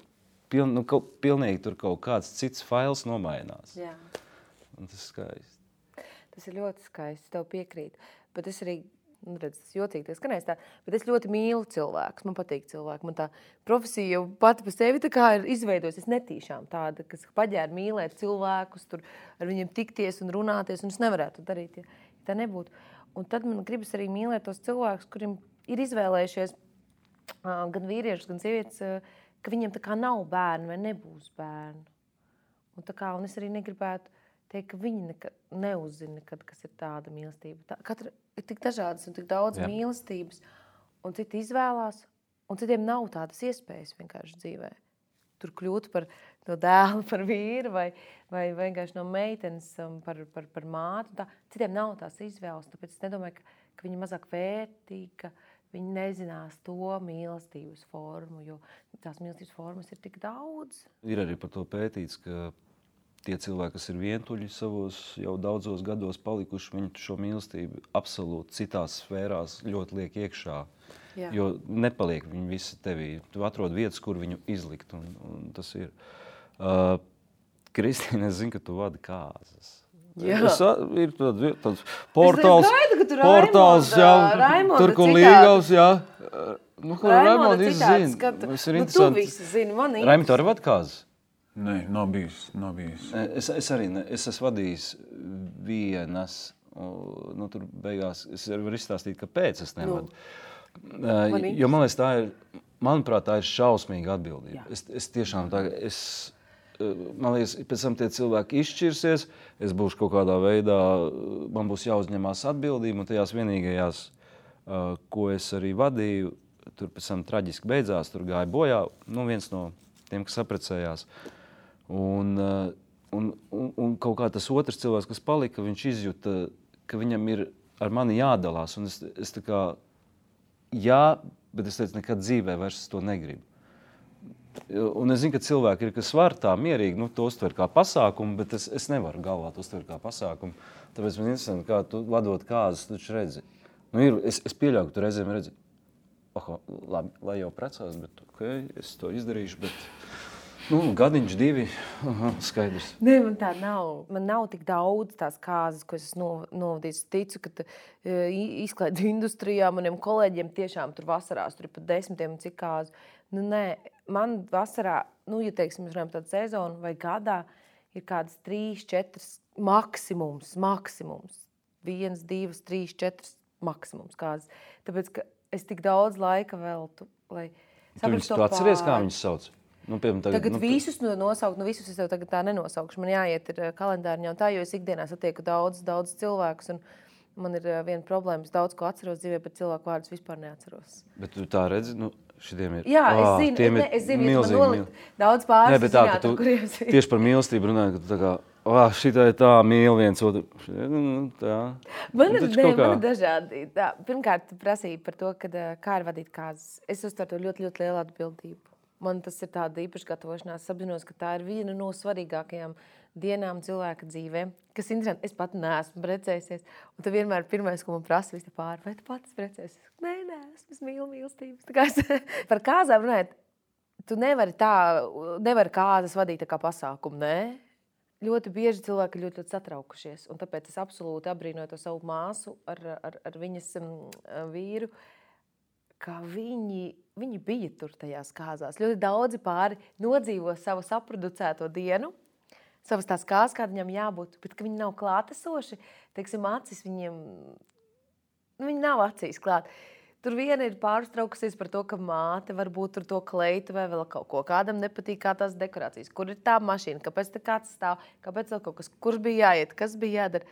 pilnīgi tur kaut kāds cits fails nomainās. Jā. Un tas ir skaisti. Tas ir ļoti skaisti, tev piekrīt. Bet es arī redz, tas jocīgi, tas skanēs tā, bet es ļoti mīlu cilvēkus, man patīk cilvēki, man tā profesija jau pati pa sevi tā kā ir izveidojusi, es netīšām tāda, kas paģēra mīlēt cilvēkus, tur ar viņiem tikties un runāties, un es nevarētu darīt, ja tā nebūtu. Un tad man gribas arī mīlēt tos cilvēkus, kuriem ir izvēlējušies gan vīriešus, gan sievietes, ka viņiem tā kā nav bērni vai nebūs bērni. Un es arī negribētu teikt, ka viņi neuzzina nekad, kas ir tāda mīlestība. Katra ir tik dažādas un tik daudz mīlestības, un citi izvēlās, un citiem nav tādas iespējas vienkārši dzīvē. Tur kļūt par no dēlu, par vīru vai vienkārši no meitenes par mātu. Citiem nav tās izvēles, tāpēc es nedomāju, ka viņi mazāk vērtīgi, ka viņi nezinās to mīlestības formu, jo tās mīlestības formas ir tik daudz. Ir arī par to pētīts, ka tie cilvēki, kas ir vientuļi savos jau daudzos gados palikuši, viņi šo mīlestību absolūti citās sfērās ļoti liek iekšā. Jā. Jo nepaliek viņi visi tevī. Tu atrod vietas, kur viņu izlikt, un tas ir. Kristīne, es zinu, ka tu vadi kāzas. Ir tāds portāls, tur, kur Līgavs, jā. Kur Raimonda izzina. Tu visi zini, man ir. Raimond, tu arī vadi kāzas? Nē, nav bijis. Es arī ne. Es esmu vadījis vienas. Tur beigās es varu izstāstīt, kāpēc es nevadu. Jo man liekas, manuprāt, tā ir šausmīga atbildība. Es tiešām man liekas, pēc tam tie cilvēki izšķirsies, es būšu kaut kādā veidā, man būs jāuzņemās atbildība, un tajās vienīgajās, ko es arī vadīju, tur pēc tam traģiski beidzās, tur gāja bojā, viens no tiem, kas saprecējās. Un kaut kā tas otrs cilvēks, kas palika, viņš izjuta, ka viņam ir ar mani jādalās, un es tā kā, bet es teicu, nekad dzīvē vairs to negribu. Un es zinu, ka cilvēki ir, kas var tā mierīgi, to uztver kā pasākumu, bet es nevaru galvā to uztver kā pasākumu. Tāpēc man interesanti, kā tu vadot kāzas, tu taču redzi. Es pieļauju, ka tu reizēm redzi, labi, lai jau precās, bet es to izdarīšu, bet gadiņš 2, skaidrs. Nē, man tā nav. Man nav tik daudz tās kāzas, ko es novadīju. Es ticu, ka izklaides industrijā maniem kolēģiem tiešām tur vasarās, tur ir pat 10 un cik kāzu. Nē, man vasarā, ja teiksim, mēs runājam tādu sezonu vai gadā, ir kādas 3, 4 maksimums. 1, 2, 3, 4 maksimums kāzas. Tāpēc, ka es tik daudz laika veltu, lai saprastu to pāri. Tu atceries, kā viņus sauc? Tagad visus nosaukt, visus es jau tagad tā nenosaukšu. Man jāiet ir kalendāriņā un tā, jo es ikdienā satieku daudz cilvēkus. Un man ir viena problēma, es daudz ko atceros dzīvē, bet cilvēku vārdus vispār neatceros. Bet tu tā redzi, šitiem ir... Jā, es zinu, ja man nolikt daudz pāris. Nē, bet tā, ka tu tieši par mīlestību runāji, ka tu tā kā, šitā ir tā mīl viens otru. Tā. Man ir dažādi. Pirmkārt, tu prasīji par to, kā ir vadīt kāzas. Es uztveru to ļoti, ļoti lielu atbildību. Man tas ir tāda īpaša gatavošanās. Es apzinos, ka tā ir viena no svarīgākajām dienām cilvēka dzīvē. Kas interesanti, es pat neesmu precējusies. Un tu vienmēr pirmais, ko man prasa visi pāri, vai tu pats precējusies? Nē, es mīlu mīlestības. Par kāzām runājot, tu nevari kāzas vadīt tā kā pasākumu, nē? Ļoti bieži cilvēki ļoti, ļoti satraukušies. Un tāpēc es absolūti apbrīnoju to savu māsu ar viņas vīru, ka viņi bija tur tajās kāzās. Ļoti daudzi pāri nodzīvo savu saproducēto dienu, savas tās kāzas, kāda viņam jābūt, bet ka viņi nav klātesoši, teiksim, acis viņiem, viņi nav acīs klāt. Tur viena ir pārstraukusies par to, ka māte varbūt tur to kleitu vai vēl kaut ko. Kādam nepatīk kā tās dekorācijas, kur ir tā mašīna, kāpēc te kāds stāv, kāpēc vēl kaut kas, kur bija jāiet, kas bija jādara.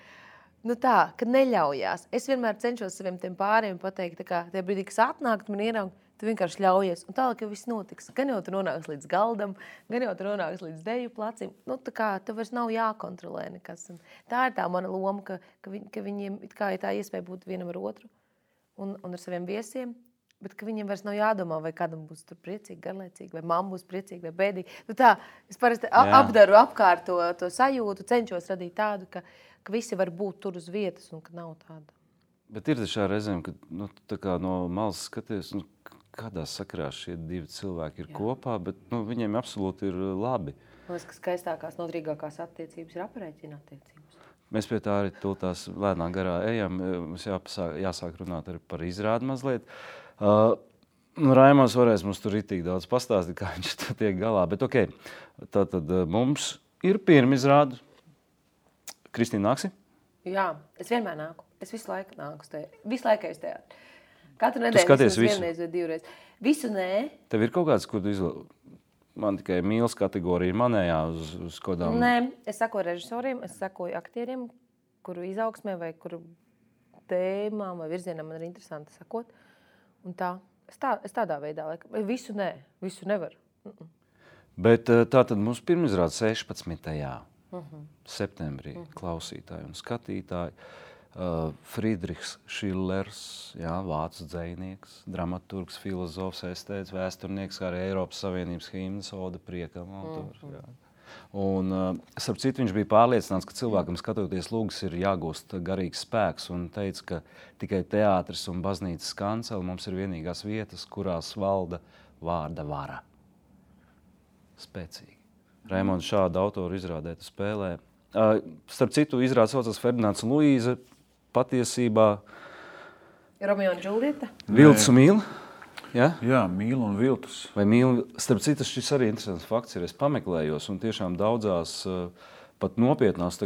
Tā, ka neļaujās. Es vienmēr cenšos saviem tiem pāriem pateikt, tā kā tie brīdī, kas atnākt man ieraug, tu vienkārši ļaujies. Un tālāk jau viss notiks. Gan jau tu nonāks līdz galdam, gan jau tu nonāks līdz deju placim. Tā kā tev vairs nav jākontrolē nekas. Un tā ir tā mana loma, ka viņiem it kā ir tā iespēja būt vienam ar otru un ar saviem viesiem, bet ka viņiem vairs nav jādomā, vai kādam būs tur priecīgi, garlaicīgi, vai mamma būs priecīgi, vai bēdīgi. Tā, es parasti apdaru apkārt to sajūtu, cenšos radīt tādu, ka visi var būt tur uz vietas un ka nav tāda. Bet ir šā reizēm, ka tā kā no malas skaties, kādā sakarā šie 2 cilvēki ir kopā, bet viņiem absolūti ir labi. Man liekas, ka skaistākās, noturīgākās attiecības ir aprēķina attiecības. Mēs pie tā arī tūltās lēnā garā ejam. Mums jāsāk runāt arī par izrādi mazliet. Raimons varēs mums tur ritīgi daudz pastāstīt, kā viņš tur tiek galā. Bet tātad mums ir pirmizrāde. Kristīna, nāksi? Jā, es vienmēr nāku. Es visu laiku nāku. Visu laiku es teātri. Katru nedēļu. Tu skaties visu? Vienreiz vai divreiz. Visu nē. Tev ir kaut kāds, kur tu man tikai mīlas kategorija manējā uz kodām? Nē, es sakoju režisoriem, es sakoju aktieriem, kuru izaugsmē vai kuru tēmām vai virzienam man ir interesanti sakot. Un tā, es tādā veidā, visu nē, visu nevaru. Bet tātad mums pirmizrāde 16. septembrī klausītāji un skatītāji. Friedrichs Šillers, vācu dzejnieks, dramaturgs, filozofs, estēts, vēsturnieks, kā arī Eiropas Savienības himnas oda priekam autors. Un, starp citu, viņš bija pārliecināts, ka cilvēkam skatoties lūgas ir jāgūst garīgs spēks un teica, ka tikai teātris un baznīcas kanceli mums ir vienīgās vietas, kurās valda vārda vara. Spēcīgi. Raimonds šādu autoru izrādē tu spēlē. Starp citu, izrāde saucas Ferdinands un Luīze. Patiesībā Romeo un Džuljeta? Viltus un Mīla? Jā, Mīla un Viltus. Vai Mīla? Starp citu, šis arī interesants fakts ir. Es pameklējos un tiešām daudzās pat nopietnās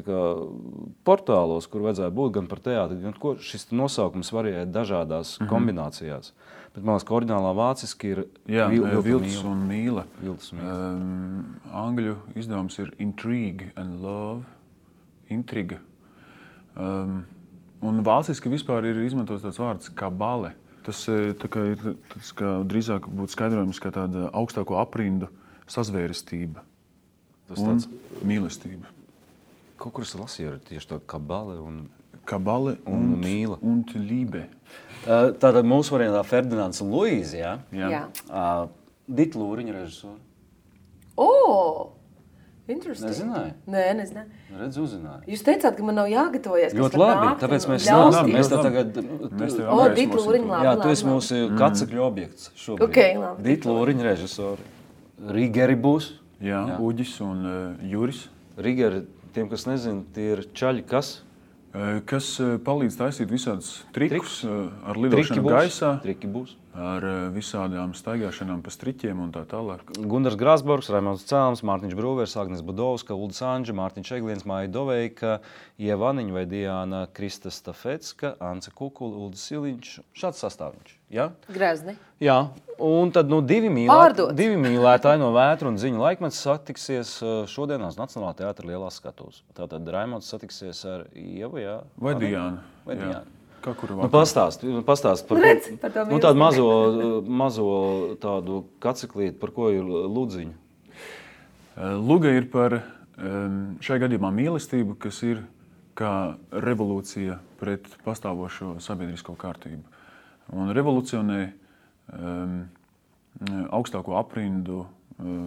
portālos, kur vajadzēja būt gan par teātri, gan ko šis nosaukums varēja dažādās kombinācijās. Bet man liekas, ka oriģinālā vāciski ir Viltus un Mīla. Viltus un Mīla. Angļu izdevums ir Intrigue and Love. Intriga. Un vāciski vispār ir izmantots tāds vārds kabale. Tas drīzāk būtu skaidrojums kā tāda augstāko aprindu sazvērestība un mīlestība. Kaut kur es lasīju tieši tā kabale un Mīla. Un Liebe. Tātad mūsu variantā Ferdinands un Luīze, jā? Jā. Dita Lūriņa režisori. Interesting. Nezināju? Nē, nezināju. Redz, uzzināju. Jūs teicāt, ka man nav jāgatavojas. Ļoti labi, tāpēc mēs tagad... Dita Lūriņa, labi. Jā, tu esi mūsu kacekļu objekts šobrīd. Okay, labi. Dita Lūriņa režisori. Rigeri būs. Jā, Uģis un Juris. Rigeri, tiem, kas nezina, tie ir čaļi, kas? Kas palīdz taisīt visādus trikus ar lidošanu gaisā. Triki būs. Ar visādām staigāšanām pa striķiem un tā tālāk. Gundars Grāsborgs, Raimonds Cēlms, Mārtiņš Brūvers, Agnes Budovska, Uldis Anģa, Mārtiņš Egliens, Māja Doveika, Ieva Aniņa vai Diana Krista Stafecka, Ance Kukula, Uldis Siliņš. Šāds sastāviņš, jā? Grezni. Jā, un tad divi mīlētāji no Vētru un Ziņu laikmets satiksies šodienās Nacionālā teātra lielās skatuves. Tātad Raimonds satiksies ar Ievu, jā? Vai Diānu. Vai Diānu. Pastāst par tādu mazo tādu kaceklīti, par ko ir Ludziņa. Luga ir par šajā gadījumā mīlestību, kas ir kā revolūcija pret pastāvošo sabiedrisko kārtību. Un revolucionē augstāko aprindu,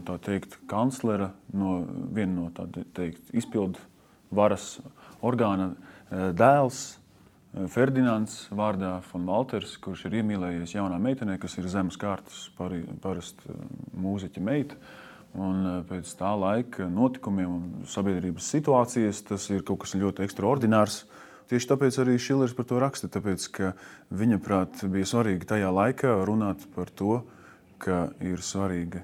tā teikt, kanclera viena no tā teikt izpildu varas orgāna dēls, Ferdinands vārdā von Walters, kurš ir iemīlējies jaunā meitenē, kas ir zemes kārtas parasti mūziķa meita. Un pēc tā laika notikumiem un sabiedrības situācijas tas ir kaut kas ļoti ekstraordinārs. Tieši tāpēc arī Šillers par to raksta, tāpēc, ka viņa prāt bija svarīgi tajā laikā runāt par to, ka ir svarīga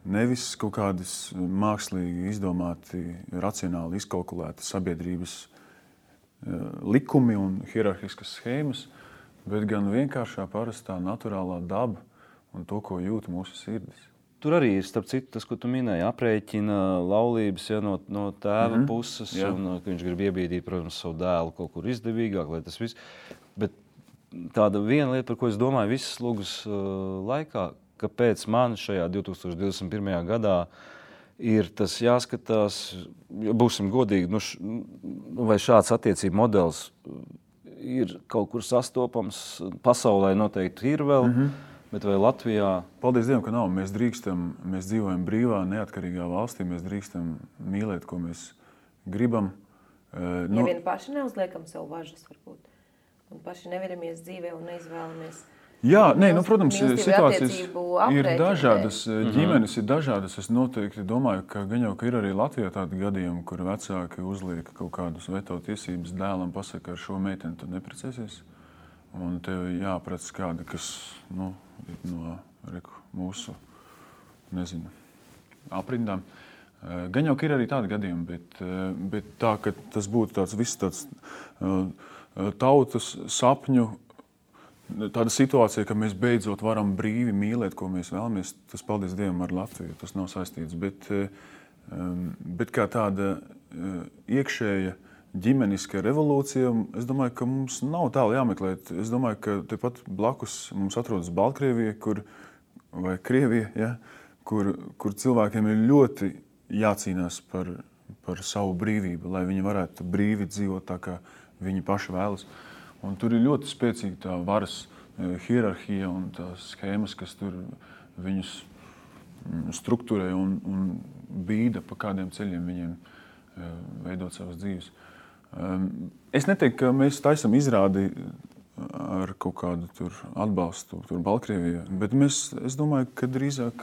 nevis kaut kādas mākslīgi izdomāti, racionāli izkalkulēti sabiedrības likumi un hierarhiskas schēmas, bet gan vienkāršā parastā naturālā daba un to, ko jūt mūsu sirdis. Tur arī ir, starp citu, tas, ko tu minēji, aprēķina laulības no tēva puses, un ka viņš grib iebīdīt, protams, savu dēlu kaut kur izdevīgāk, lai tas viss. Bet tāda viena lieta, par ko es domāju visas lūgas laikā, kāpēc man šajā 2021. gadā ir tas jāskatās, būsim godīgi, vai šāds attiecību modelis ir kaut kur sastopams, pasaulē noteikti ir vēl, bet vai Latvijā? Paldies Dievam, ka nav. Mēs dzīvojam brīvā, neatkarīgā valstī, mēs drīkstam mīlēt, ko mēs gribam. Vien paši neuzliekam sev važas, varbūt, un paši neveramies dzīvē un neizvēlamies Jā, protams, mīlestību situācijas attiecību ir aprēķinu dažādas, ģimenes ir dažādas. Es noteikti domāju, ka ir arī Latvijā tādi gadījumi, kur vecāki uzliek kaut kādus veto tiesības dēlam, pasaka, ar šo meiteni tu neprecēsies. Un tev jāprec kādi, kas no mūsu, aprindām. Gan jau ir arī tādi gadījumi, bet tā, ka tas būtu tāds tautas sapņu, tāda situācija, ka mēs beidzot varam brīvi mīlēt, ko mēs vēlamies, tas, paldies Dievam, ar Latviju, tas nav saistīts. Bet kā tāda iekšēja ģimeniska revolūcija, es domāju, ka mums nav tālu jāmeklēt. Es domāju, ka tepat blakus mums atrodas Baltkrievija, vai Krievija, ja, kur cilvēkiem ir ļoti jācīnās par savu brīvību, lai viņi varētu brīvi dzīvot tā, kā viņi paši vēlas. Un tur ir ļoti spēcīga tā varas hierarhija un tās schēmas, kas tur viņus strukturē un bīda, pa kādiem ceļiem viņiem veidot savas dzīves. Es neteiktu, ka mēs taisam izrādi ar kaut kādu tur atbalstu tur Baltkrievijā, bet es domāju, ka drīzāk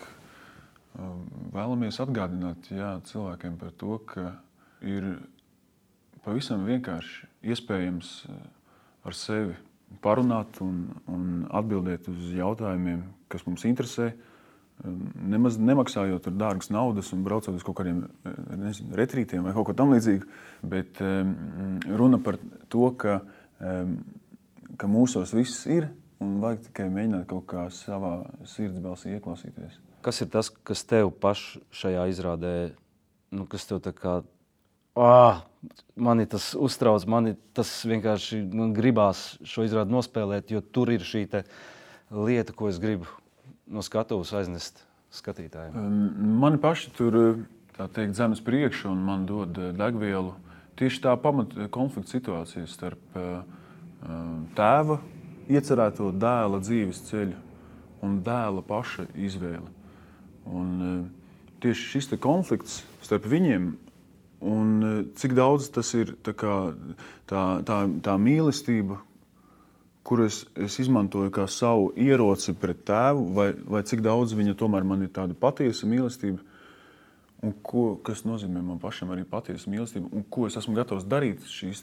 vēlamies atgādināt cilvēkiem par to, ka ir pavisam vienkārši iespējams ar sevi parunāt un atbildēt uz jautājumiem, kas mums interesē, nemaz nemaksājot tur dārgas naudas un braucot uz kaut kādiem retrītiem vai kaut ko tam līdzīgu, bet runa par to, ka mūsos viss ir un vajag tikai mēģināt kaut kā savā sirds balsī ieklausīties. Kas ir tas, kas tev paši šajā izrādē, kas tev tā kā mani tas uztrauc, tas vienkārši gribās šo izrādi nospēlēt, jo tur ir šī lieta, ko es gribu no skatuves aiznest skatītājiem. Mani paši tur, tā teikt, zemes priekšu un man dod degvielu. Tieši tā pamata konflikta situācija starp tēva iecerēto dēla dzīves ceļu un dēla paša izvēli. Un tieši šis konflikts starp viņiem un cik daudz tas ir tā mīlestība, kuru es izmantoju kā savu ieroci pret tēvu, vai cik daudz viņa tomēr man ir tāda patiesa mīlestība, un kas nozīmē man pašam arī patiesa mīlestība, un ko es esmu gatavs darīt šīs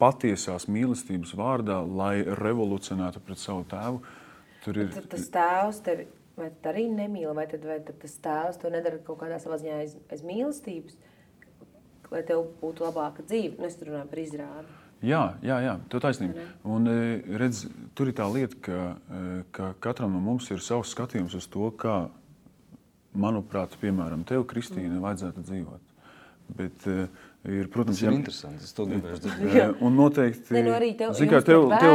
patiesās mīlestības vārdā, lai revolucionētu pret savu tēvu. Tas tēvs tevi vai tad arī nemīl, vai tad tas tēvs to nedara kaut kādā savā ziņā aiz mīlestības, lai tev būtu labāka dzīve. Es tur runāju par izrādi. Jā, tev taisnība. Un redz, tur ir tā lieta, ka katram no mums ir savs skatījums uz to, kā, manuprāt, piemēram, tev, Kristīne, vajadzētu dzīvot. Bet protams, tas ir interesanti, es to gribēju dzirdēt. Un noteikti, arī tev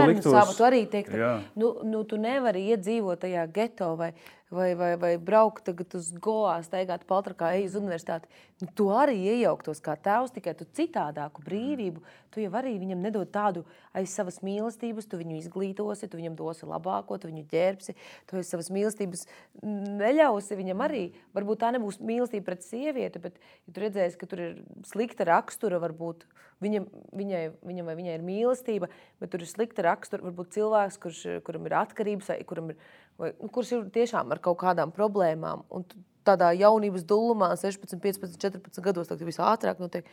liktos, savu, tu arī teikt, tu nevari iedzīvot tajā geto vai braukt tagad uz Goā, staigāt paltrakā, ej uz universitāti. Tu arī iejauktos kā tēvs, tikai tu citādāku brīvību. Tu jau arī viņam nedod tādu aiz savas mīlestības, tu viņu izglītosi, tu viņam dosi labāko, tu viņu ģērbsi, tu aiz savas mīlestības neļausi viņam arī. Varbūt tā nebūs mīlestība pret sievieti, bet ja tu redzēsi, ka tur ir slikta rakstura, varbūt viņam vai viņai ir mīlestība, bet tur ir slikta rakstura, varbūt cilvēks, kuram ir atkarības, kurš ir tiešām ar kaut kādām problēmām. Un tādā jaunības dullumā, 16, 15, 14 gados, tad viss ātrāk notiek.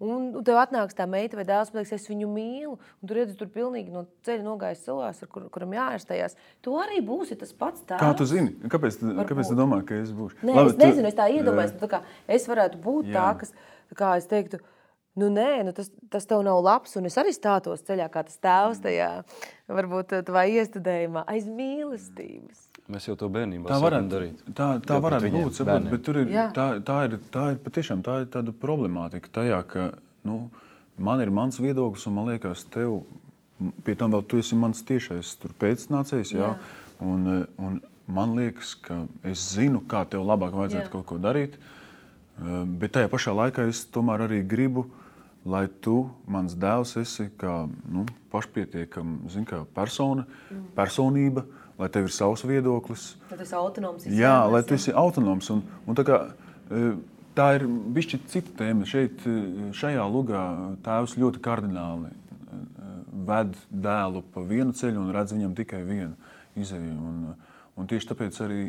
Un tev atnāks tā meita vai dēls, pateiks, es viņu mīlu, un tu redzi tur pilnīgi no ceļa nogājis cilvēks, kuram jāārstējās. Tu arī būsi tas pats tēvs. Kā tu zini? Kāpēc tu domā, ka es būšu? Nē, es nezinu, es tā iedomājos, es varētu būt tā, kas, kā es teiktu, tas tev nav labs, un es arī stātos ceļā kā tas tēvs tajā, varbūt tavā iestudējumā aiz mīlestības. Mēs jau to bērnībā sākam darīt. Tā varētu būt, saprot, bet tur ir, tā ir patiešām tāda problemātika tajā, ka, man ir mans viedoklis, un man liekas, tev, pie tam vēl tu esi mans tiešais tur pēcnācējs, un man liekas, ka es zinu, kā tev labāk vajadzētu kaut ko darīt, bet tajā pašā laikā es tomēr arī gribu, lai tu, mans dēls, esi kā pašpietiekama personība, lai tev ir savs viedoklis. Lai tu esi autonoms. Jā, lai tu esi autonoms. Un tā ir bišķi cita tēma. Šajā lugā tēvs ļoti kardināli ved dēlu pa vienu ceļu un redz viņam tikai vienu izēju. Un tieši tāpēc arī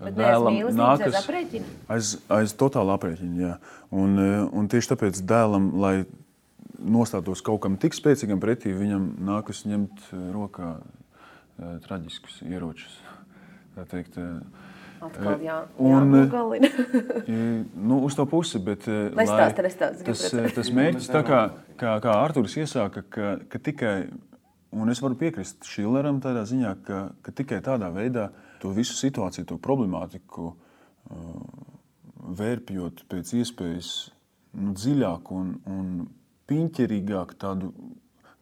dēlam nākas aiz totāla aprēķina. Jā. Un tieši tāpēc dēlam, lai nostātos kaut kam tik spēcīgam pretī, viņam nākas ņemt rokā traģiskus ieročus. Tā teikt, atkal jānogalina. Uz to pusi, bet tas mērķis, tā kā Arturs iesāka, ka tikai, un es varu piekrist Šileram tādā ziņā, ka tikai tādā veidā to visu situāciju, to problemātiku vērpjot pēc iespējas dziļāk un piņķerīgāk, tādu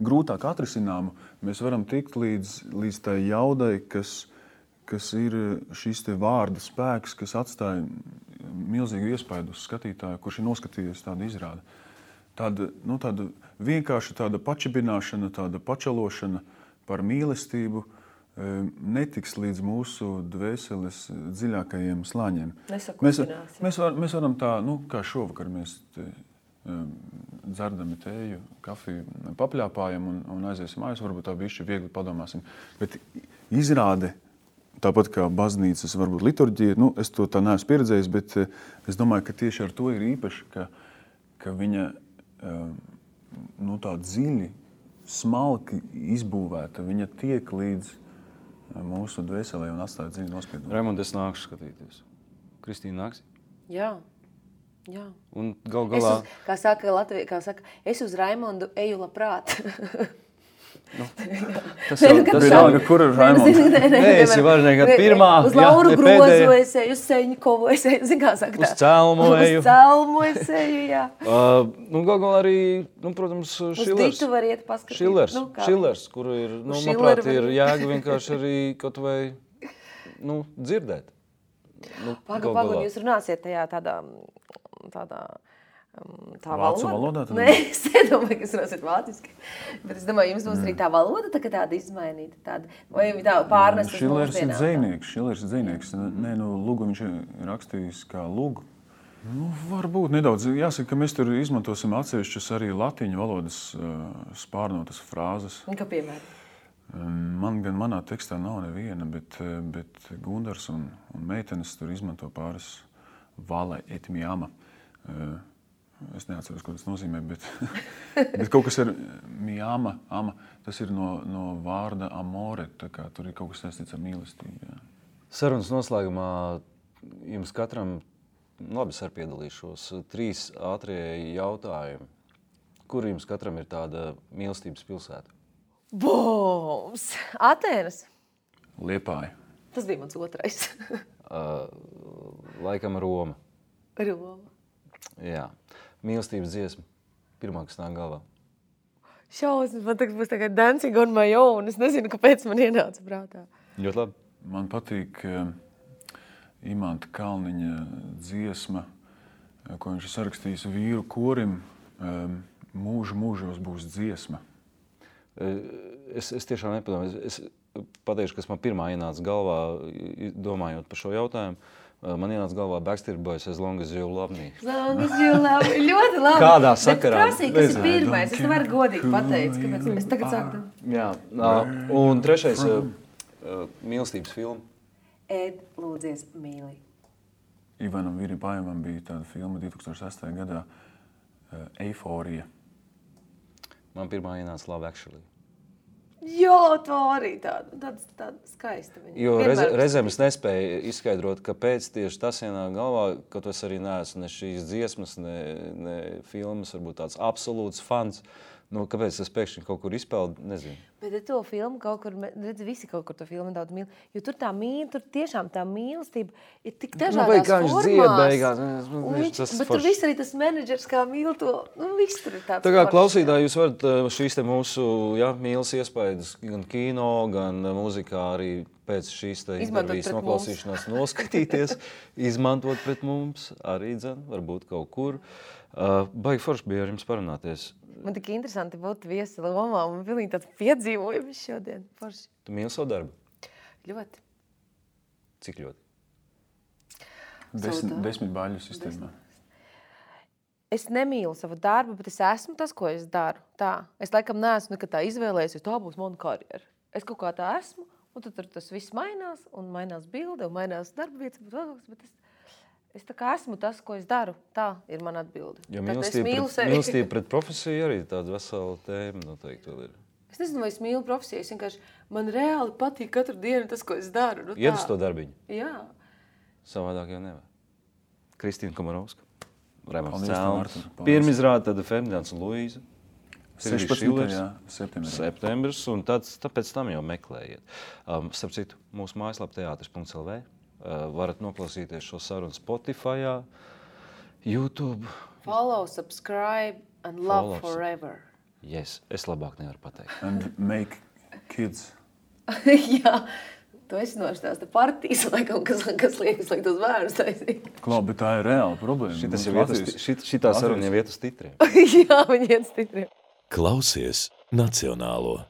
grūtāk atrisināmu, mēs varam tikt līdz tai jaudai, kas ir šis te vārda spēks, kas atstāja milzīgu iespaidu uz skatītāju, kurš ir noskatījies tādu izrādi. Tāda vienkārši tāda pačibināšana, tāda pačalošana par mīlestību netiks līdz mūsu dvēseles dziļākajiem slāņiem. Mēs varam tā, kā šovakar mēs dzerdami tēju, kafiju, papļāpājam un aiziesim mājās, varbūt tā bišķi viegli padomāsim. Bet izrāde, tāpat kā baznīcas, varbūt liturģija, es to tā neesmu pieredzējis, bet es domāju, ka tieši ar to ir īpaši, ka viņa tā dziļi, smalki izbūvēta, viņa tiek līdz mūsu dvēselē un atstāja dziļi nospiedumu. Raimond, es nākšu skatīties. Kristīna nāks? Jā. Un gal galā... Kā saka, es uz Raimondu eju labprāt. Tas jau kur ir Raimonds? Nē, es jau varu nekad pirmā. Uz Lauru Grozu es eju, uz Seņikovu es eju, zin kā saka tā. Uz Celmu eju. Uz Celmu es eju, jā. Gal galā arī, protams, Šilers. Uz Ditu var iet paskatīt. Šilers, kur ir, manuprāt, ir jēga vienkārši arī kaut vai, dzirdēt. Pagaid, jūs runāsiet tajā tādā vācu valodā? Nē, es nedomāju, ka jūs runāsiet vāciski. Bet es domāju, jums būs arī tā valoda tāda izmainīta. Vai tā pārnest uz mūsdienām? Šilers ir dzejnieks. Nē, Lugu viņš ir rakstījis kā Lugu. Varbūt nedaudz. Jāsaka, ka mēs tur izmantosim atsevišķas arī latiņu valodas spārnotas frāzes. Kā piemēram? Manā tekstā nav neviena, bet Gundars un meitenes tur izmanto pāris vale et miama. Es neatceros, ko tas nozīmē, bet kaut kas ir miama, ama, tas ir no vārda amore, tā kā tur ir kaut kas saistīts ar mīlestību. Jā. Sarunas noslēgumā jums katram, labi, es arī piedalīšos, 3 ātrie jautājumi. Kur jums katram ir tāda mīlestības pilsēta? Boms! Atēnas! Liepāja. Tas bija mans otrais. Laikam Roma. Roma. Jā. Mīlestības dziesma. Pirmā, kas nāk galvā. Šausmas, man tagad būs tagad Dancing on my own. Es nezinu, kāpēc man ienāca prātā. Ļoti labi. Man patīk Imanta Kalniņa dziesma, ko viņš ir sarakstījis vīru korim. Mūžos būs dziesma. Es tiešām nepadomāju. Es pateikšu, kas man pirmā ienāca galvā, domājot par šo jautājumu. Man ienāca galvā Backstreet Boys, As Long As You Love Me. As Long As You Love Me. Ļoti labi. Kādā sakarā? Bet prasīja, kas ir pirmais. Es nevaru godīgi pateikt, kāpēc es tagad sāktu. Jā. Un trešais mīlestības filma. Ed, lūdzies, mīli. Ivanam Viripājumam bija tāda filma 2008. gadā Eiforija. Man pirmā ienāca Love Actually. Jā, to arī tāda skaista viņa. Jo reizēm es nespēju izskaidrot, kāpēc tieši tas ienāk galvā, kaut es arī neesmu ne šīs dziesmas, ne filmas, varbūt tāds absolūts fans. Kāpēc es pēkšņi kaut kur izpeldu, nezinu. Bet to filmu kaut kur, redz, visi kaut kur to filmu daudz mīl, jo tur tur tiešām tā mīlestība ir tik dažādās formās. Bet tur viss arī tas menedžers kā mīl to, viss tur ir tāds. Tā kā klausītāji, jūs varat šīs te mūsu mīlas iespējas gan kino, gan mūzikā arī pēc šīs te intervijas noklausīšanās noskatīties, izmantot pret mums arī, varbūt kaut kur. Baigi forši bija ar jums parunāties. Man tik interesanti būt viesi Lomā, un pilnīgi tāds piedzīvojums šodien. Forši. Tu mīli savu darbu? Ļoti. Cik ļoti? 10 baļu sistēmā. es nemīlu savu darbu, bet es esmu tas, ko es daru. Tā. Es laikam neesmu nekad tā izvēlējies, jo tā būs mana karjera. Es kaut kā tā esmu, un tad tas viss mainās, un mainās bilde, un mainās darba vietas, bet es tā kā esmu tas, ko es daru. Tā ir mana atbilde. Jo mīlestība pret profesiju arī tāda vesela tēma noteikti vēl ir. Es nezinu, vai es mīlu profesiju, es vienkārši, man reāli patīk katru dienu tas, ko es daru. Nu, iet uz to darbiņu? Jā. Savādāk jau nevar. Kristīna Komarovska, Raimonds Celms, pirmizrāde, tad Ferdinands un Luīza. 16. septembris, un tāpēc tam jau meklējiet. Starp citu, mūsu mājaslapa teatris.lv. Varat noklausīties šo sarunu Spotifyā, YouTube. Follow, subscribe and love forever. Yes, es labāk nevaru pateikt. And make kids. Jā, tu esi nostāsta partijas, laikam, kas liekas, lai tos vērus taisīt. Klau, bet tā ir reāla problēma. Šitā saruna jau iet uz titriem. Jā, viņi iet uz titriem. Klausies Nacionālo.